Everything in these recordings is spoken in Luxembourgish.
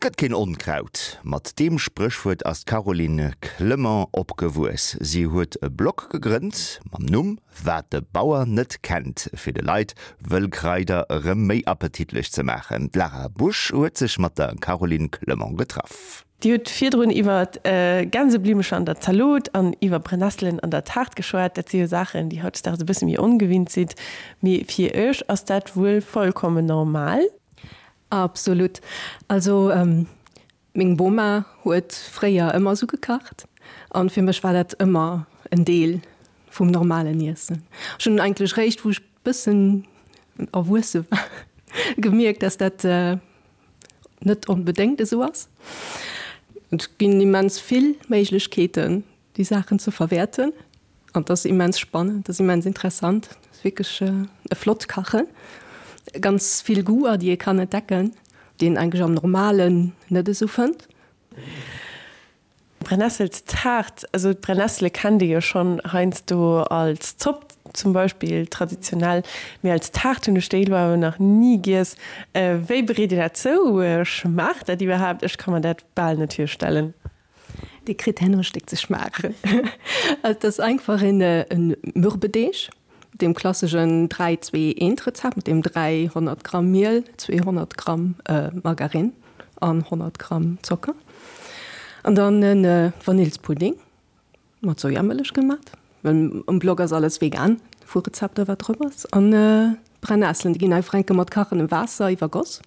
Et gëtt keen Onkraut. Mat deem Spréchwuert ass d'Caroline Clement opgewuess. Si huet e Blog gegrënnt mam Numm Wat de Bauer net kennt, fir de Leit Wëllkraider erëm méi appetitlech ze maachen. D'Lara Busch huet sech mat der Caroline Clement getraff. Dir hutt virdrun iwwer Gänseblimecher an der Zalot an iwwer Brennesselen an der Taart geschwat. Dat si jo Saachen, déi hautdesdaags e bësse méi ongewinnt sinn. Mee fir Iech ass dat wuel vollkommen normal? Absolut. Also meng Boma huet fréier ëmmer sou gekacht an fir mech war dat ëmmer en Deel vum normalen Iessen. Ech hunn eigentlech réischt wou ech bëssen erwuesse war gemierkt, dass dat net onbedéngt esou ass. Et ginn immens vill Méiglechkeeten déi Saachen ze verwäerten an et ass immens spannend, et ass immens interessant, et ass wierklech e flott Kachen, ganz vill Goûter, déi ee kann entdecken, déi een eigentlech am Normalen net esou fënnt. Brennesselstaart, also d'Brennessele kennt ee jo schonn heiansdo als Zopp zum Beispill traditionell, mee als Taart hunn ech déi elo awer nach ni giess. Wéi bereet Dir dat zou? Schmaacht dat iwwerhaapt? Ech ka mer dat bal net virstellen. Dir kritt herno e Stéck ze schmaachen. Et ass einfach en Mürbedeeg, deem klasseschen 3, 2, 1 Rezept mat deem 300 Gramm Miel, 200 Gramm Margarine an 100 Gramm Zocker. An dann e Vanillspudding mat Sojamëllech gemat, well um Blog ass alles vegan vu Rezepter wat drop ass. An d'Brennesselen, déi ginn einfach enke mat kachendem Waasser iwwergoss.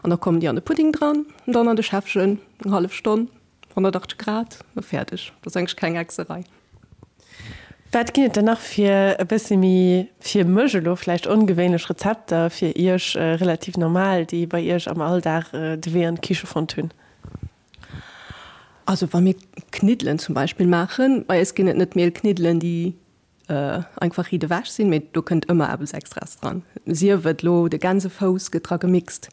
An da kommen déi an de Pudding dran, an dann an de Schäffchen, eng hallef Stonn, 180 Grad, a fäerdeg. Dat ass eigentlech keng Hexerei. Wat ginn et dann nach fir e bëssi méi, fir mech elo vläicht ongewéinlech Rezepter, fir Iech relativ normal, déi bei Iech am Alldag de Wee an d'Kiche fonnt hunn? Also wa mir Kniddelen zum Beispill maachen, bei eis ginn et net Mielkniddelen, déi einfach riit ewech sinn, mee do kënnt ëmmer eppes Extraes dran, sief et lo de Gänsefouss gëtt dra gemixt,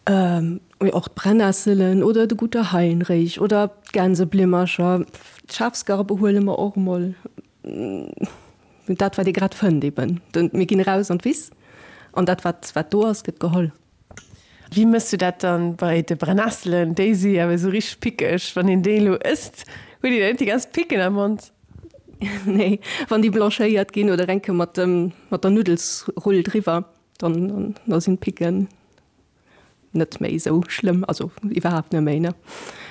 mee och d'Brennesselen oder de Guter Heinrich oder d'Gänseblimmercher, d'Schafsgarbe huele mer och emol, dat wat ee grad fënnt eben. Mir ginn eraus an d'Wiss an dat wat wat do ass gëtt geholl. Wéi mëss du dat dann bei de Brennesselen? Déi si awer esou richteg pickeg. Wann een déi elo ësst, huet een net déi ganz Picken am Mond? Nee, wann déi blanchéiert ginn oder enke mat dem mat der Nuddelsrull driwwer, dann da sinn d'Picken net méi esou schlëmm, also iwwerhaapt net méi, ne?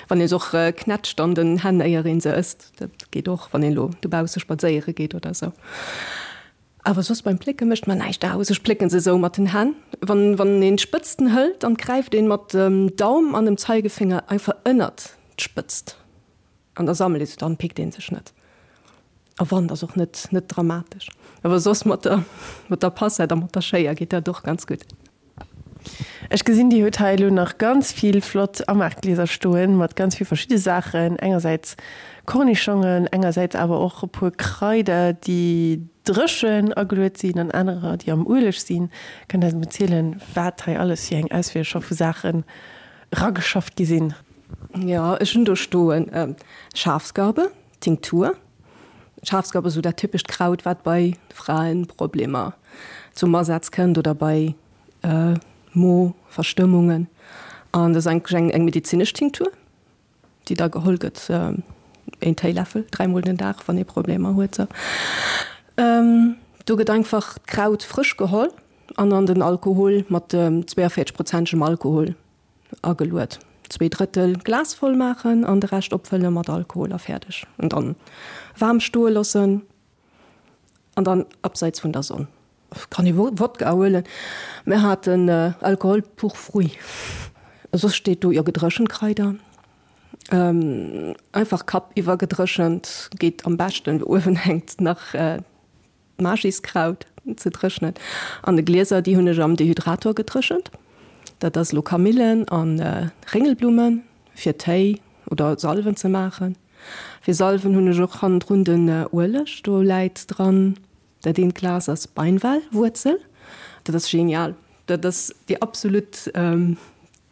Wann ee se och knätscht an den Hänn éier een se ësst, dat geet och, wann een elo dobausse spadséiere geet oder esou. Awer soss beim Plécke mécht mer näischt aus. Ech plécken se esou mat den Hänn. Wann wann een d'Spëtzten hëlt, dann gräift een mat dem Daum an dem Zeigefinger einfach ënnert d'Spëtzt an da sammelt ee se, dann pickt een sech net. A wann, ass och net net dramatesch. Awer soss mat der mat der Passett a mat der Schéier geet dat och ganz gutt. Ech gesinn, Dir hutt hei elo nach ganz vill flott Amaachglieser stoen, mat ganz vill verschidde Saachen, engersäits Kornischongen, engersäits awer och e puer Kraider, déi dréchen ageluet sinn an anerer, déi am Ueleg sinn. Kënnt Der eis emol zielen, wat hei alles fir eng Auswiel scho vu Saachen erageschafft gi sinn? Jo, ech hunn do stoen Schafsgarbe, Tinktur. Schafsgarbe ass esou dat typescht Kraut, wat bei Fraenproblemer zum Asaz kënnt oder bei Mo-Verstëmmungen. An dat ass eigentlech eng eng medezinesch Tinktur, déi da geholl gëtt, een Téiläffel dräimol den Dag, wann ee Problemer huet. Sou. Do gëtt einfach d'Kraut frësch geholl an an den Alkohol mat 42 prozentegem Alkohol ageluet. Zweedrëttel Glas voll maachen an de Rescht opfëlle mat Alkohol a fäerdeg. An dann waarm stoe loossen. An dann abseits vun der Sonn. Kann ee Wodka huelen. Mir haten Alcool pur fruit. Soss steet do jo gedréchent Kraider. Einfach Kapp iwwer gedréchent geet am beschten. Uewen hänkt nach d'Magiskraut ze dréchnen. An de Glieser déi hunn ech am Dehydrator gedréchent. Dat ass elo Kamillen an Réngelblummen fir Téi oder Salven ze maachen. Fir Salven hunn ech och hannendrun den Ueleg, do läit dran, dat eent Glas ass Beinwellwuerzel, dat ass genial, dat ass déi absolut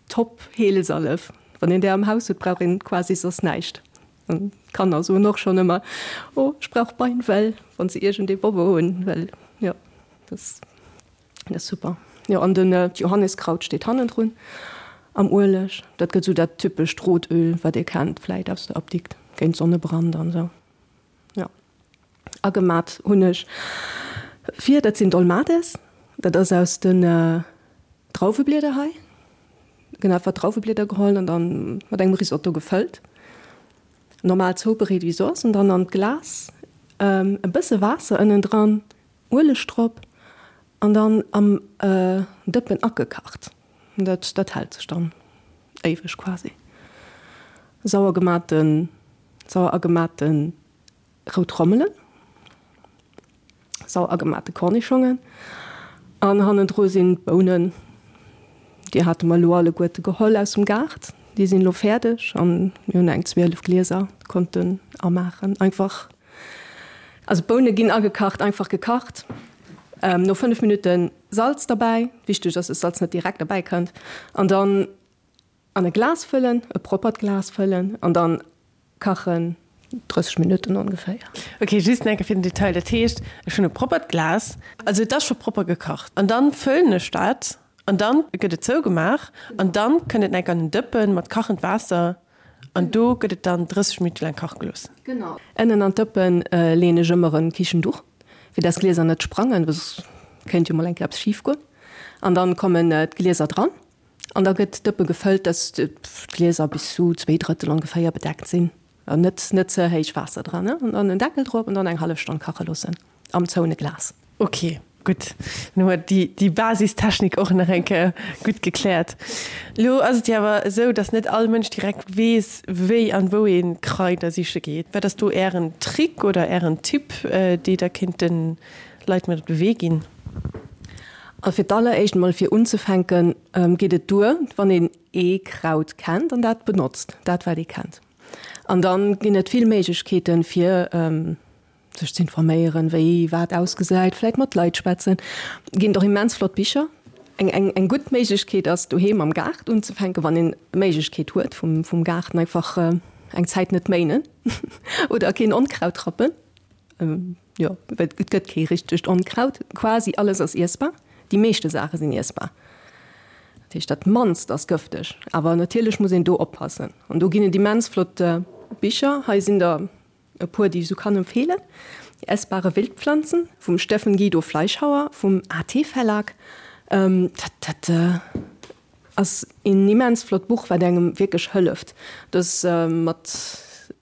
top Heelsalef. Wann een där am Haus huet, brauch een quasi soss näischt. An d'Kanner soen och schonn ëmmer, oh ech brauch Beinwell, wann se iergendee Bobbo hunn, well jo, dat ass super. Jo an den d'Johanniskraut steet hannendrun. Am Ueleg. Dat gëtt esou dat typescht Rotöl, wat ee kennt vläit aus der Apdikt, géint Sonnebrand an esou. Jo. Agemat hunn ech vir, dat sinn Dolmades, dat ass aus den Drauweblieder hei. Gëtt einfach Drauweblieder geholl an dann mat engem Risotto gefëllt. Normal zoubereet wéi soss an dann an d'Glas e bësse Waasser ënnendran, Ueleg drop an dann am Dëppen agekacht. Dat dat hält sech dann éiweg quasi. Sauer gematen, sauer agemate rout Rommelen, sauer agemate Kornischongen an hannendru sinn d'Bounen, déi hate mer elo alleguerte geholl aus dem Gaart. Déi sinn elo fäerdeg an mir hunn eng 12 Glieser konnten amaachen. Einfach, also d'Boune ginn agekacht, einfach gekacht, no 5 Minutten Salz derbäi, wichteg ass, dass Salz net direkt derbäi kënnt, an dann an e Glas fëllen, e proppert Glas fëllen an dann kachen 30 Minutten ongeféier. Ok, just nach eng Kéier fir den Detail, dat heescht ech hunn e proppert Glas, also et ass scho propper gekacht, an dann fëllen ech dat an dann gëtt et zougemaach an dann kënnt et nach eng Kéier an en Dëppen mat kachend Waasser an do gëtt et dann 30 Minutte laang kache gelooss. Genau. Ënnen an d'Dëppen leeën ech ëmmer en Kichenduch, fir dass d'Glieser net sprangen, well soss kéint jo mol eng Kéier eppes schif goen. An dann kommen d'Glieser dran an da gëtt d'Dëppe gefëllt, dass d'Glieser bis zu 2 Drëttel ongeféier bedeckt sinn. An net net ze héich Waasser dran, ne? An dann en Deckel drop an dann eng hallef Stonn kache loossen am zoune Glas. Ok, gutt, dann hu mer déi déi Basistechnik och nach eng Kéier gutt gekläert. Elo ass et jo awer esou, dass net all Mënsch direkt weess, wéi an wou ee Kraider siche geet. Wat ass do Ären Trick oder Ären Tipp, dee Der kéint de Leit mat op de Wee ginn? Also fir d'alleréischt emol fir unzefänken, geet et duer, wann een ee Kraut kennt an dat benotzt, dat wat ee kennt. An dann ginn et vill Méiglechkeeten, fir sech ze informéieren, wéi wat ausgesäit, vläit mat Leit schwätzen. Ginn et och immens flott Bicher. Eng, eng, eng gutt Méiglechkeet ass, doheem am Gaart unzefänken, wann een d'Méiglechkeet huet vum, vum Gaarten einfach eng Zäit net méinen oder keen Onkraut rappen. Jo, well et gëtt kee richtegt Onkraut. Quasi alles ass iessbar. Déi meeschte Saache sinn iessbar. Dat heescht, dat mannst ass gëfteg. Awer natierlech muss een do oppassen. An do ginn et immens flott Bicher. Hei sinn der e puer, déi ech esou kann empfeelen. Die essbare Wildpflanzen vum Steffen Guido Fleischhauer vum AT Verlag. Dat, dat Ass een immens flott Buch wat engem wierklech hëlleft. Et ass mat,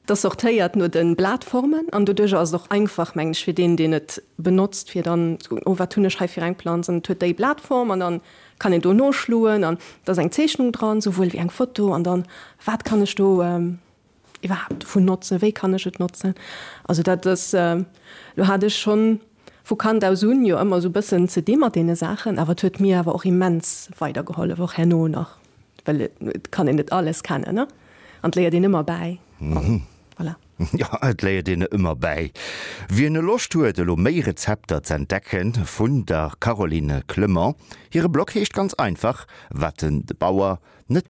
et ass sortéiert no den Blatformen an doduercher ass et och einfach mengen ech fir deen deen et benotzt fir dann ze kucken, oh wat hunn ech hei fir eng Planz an et huet déi Blatform an dann kann een do noschloen an et ass eng Zeechnung dran souwuel wéi eng Foto an dann wat kann ech do iwwerhaapt dovun notzen, wéi kann ech et notzen. Also dat ass, lo hat ech schonn vu Kand aus un jo ëmmer esou e bëssen ze di mat deene Saachen, awer et huet mir awer och immens weidergehollef, och herno nach, well et kann een net alles kennen, ne, an et léiert een ëmmer bäi an voilà. Jo, et léiert een ëmmer bäi. Wien Loscht huet elo méi Rezepter z'entdecken vun der Caroline Clement, hire Blog heescht ganz einfach Wat den Bauer.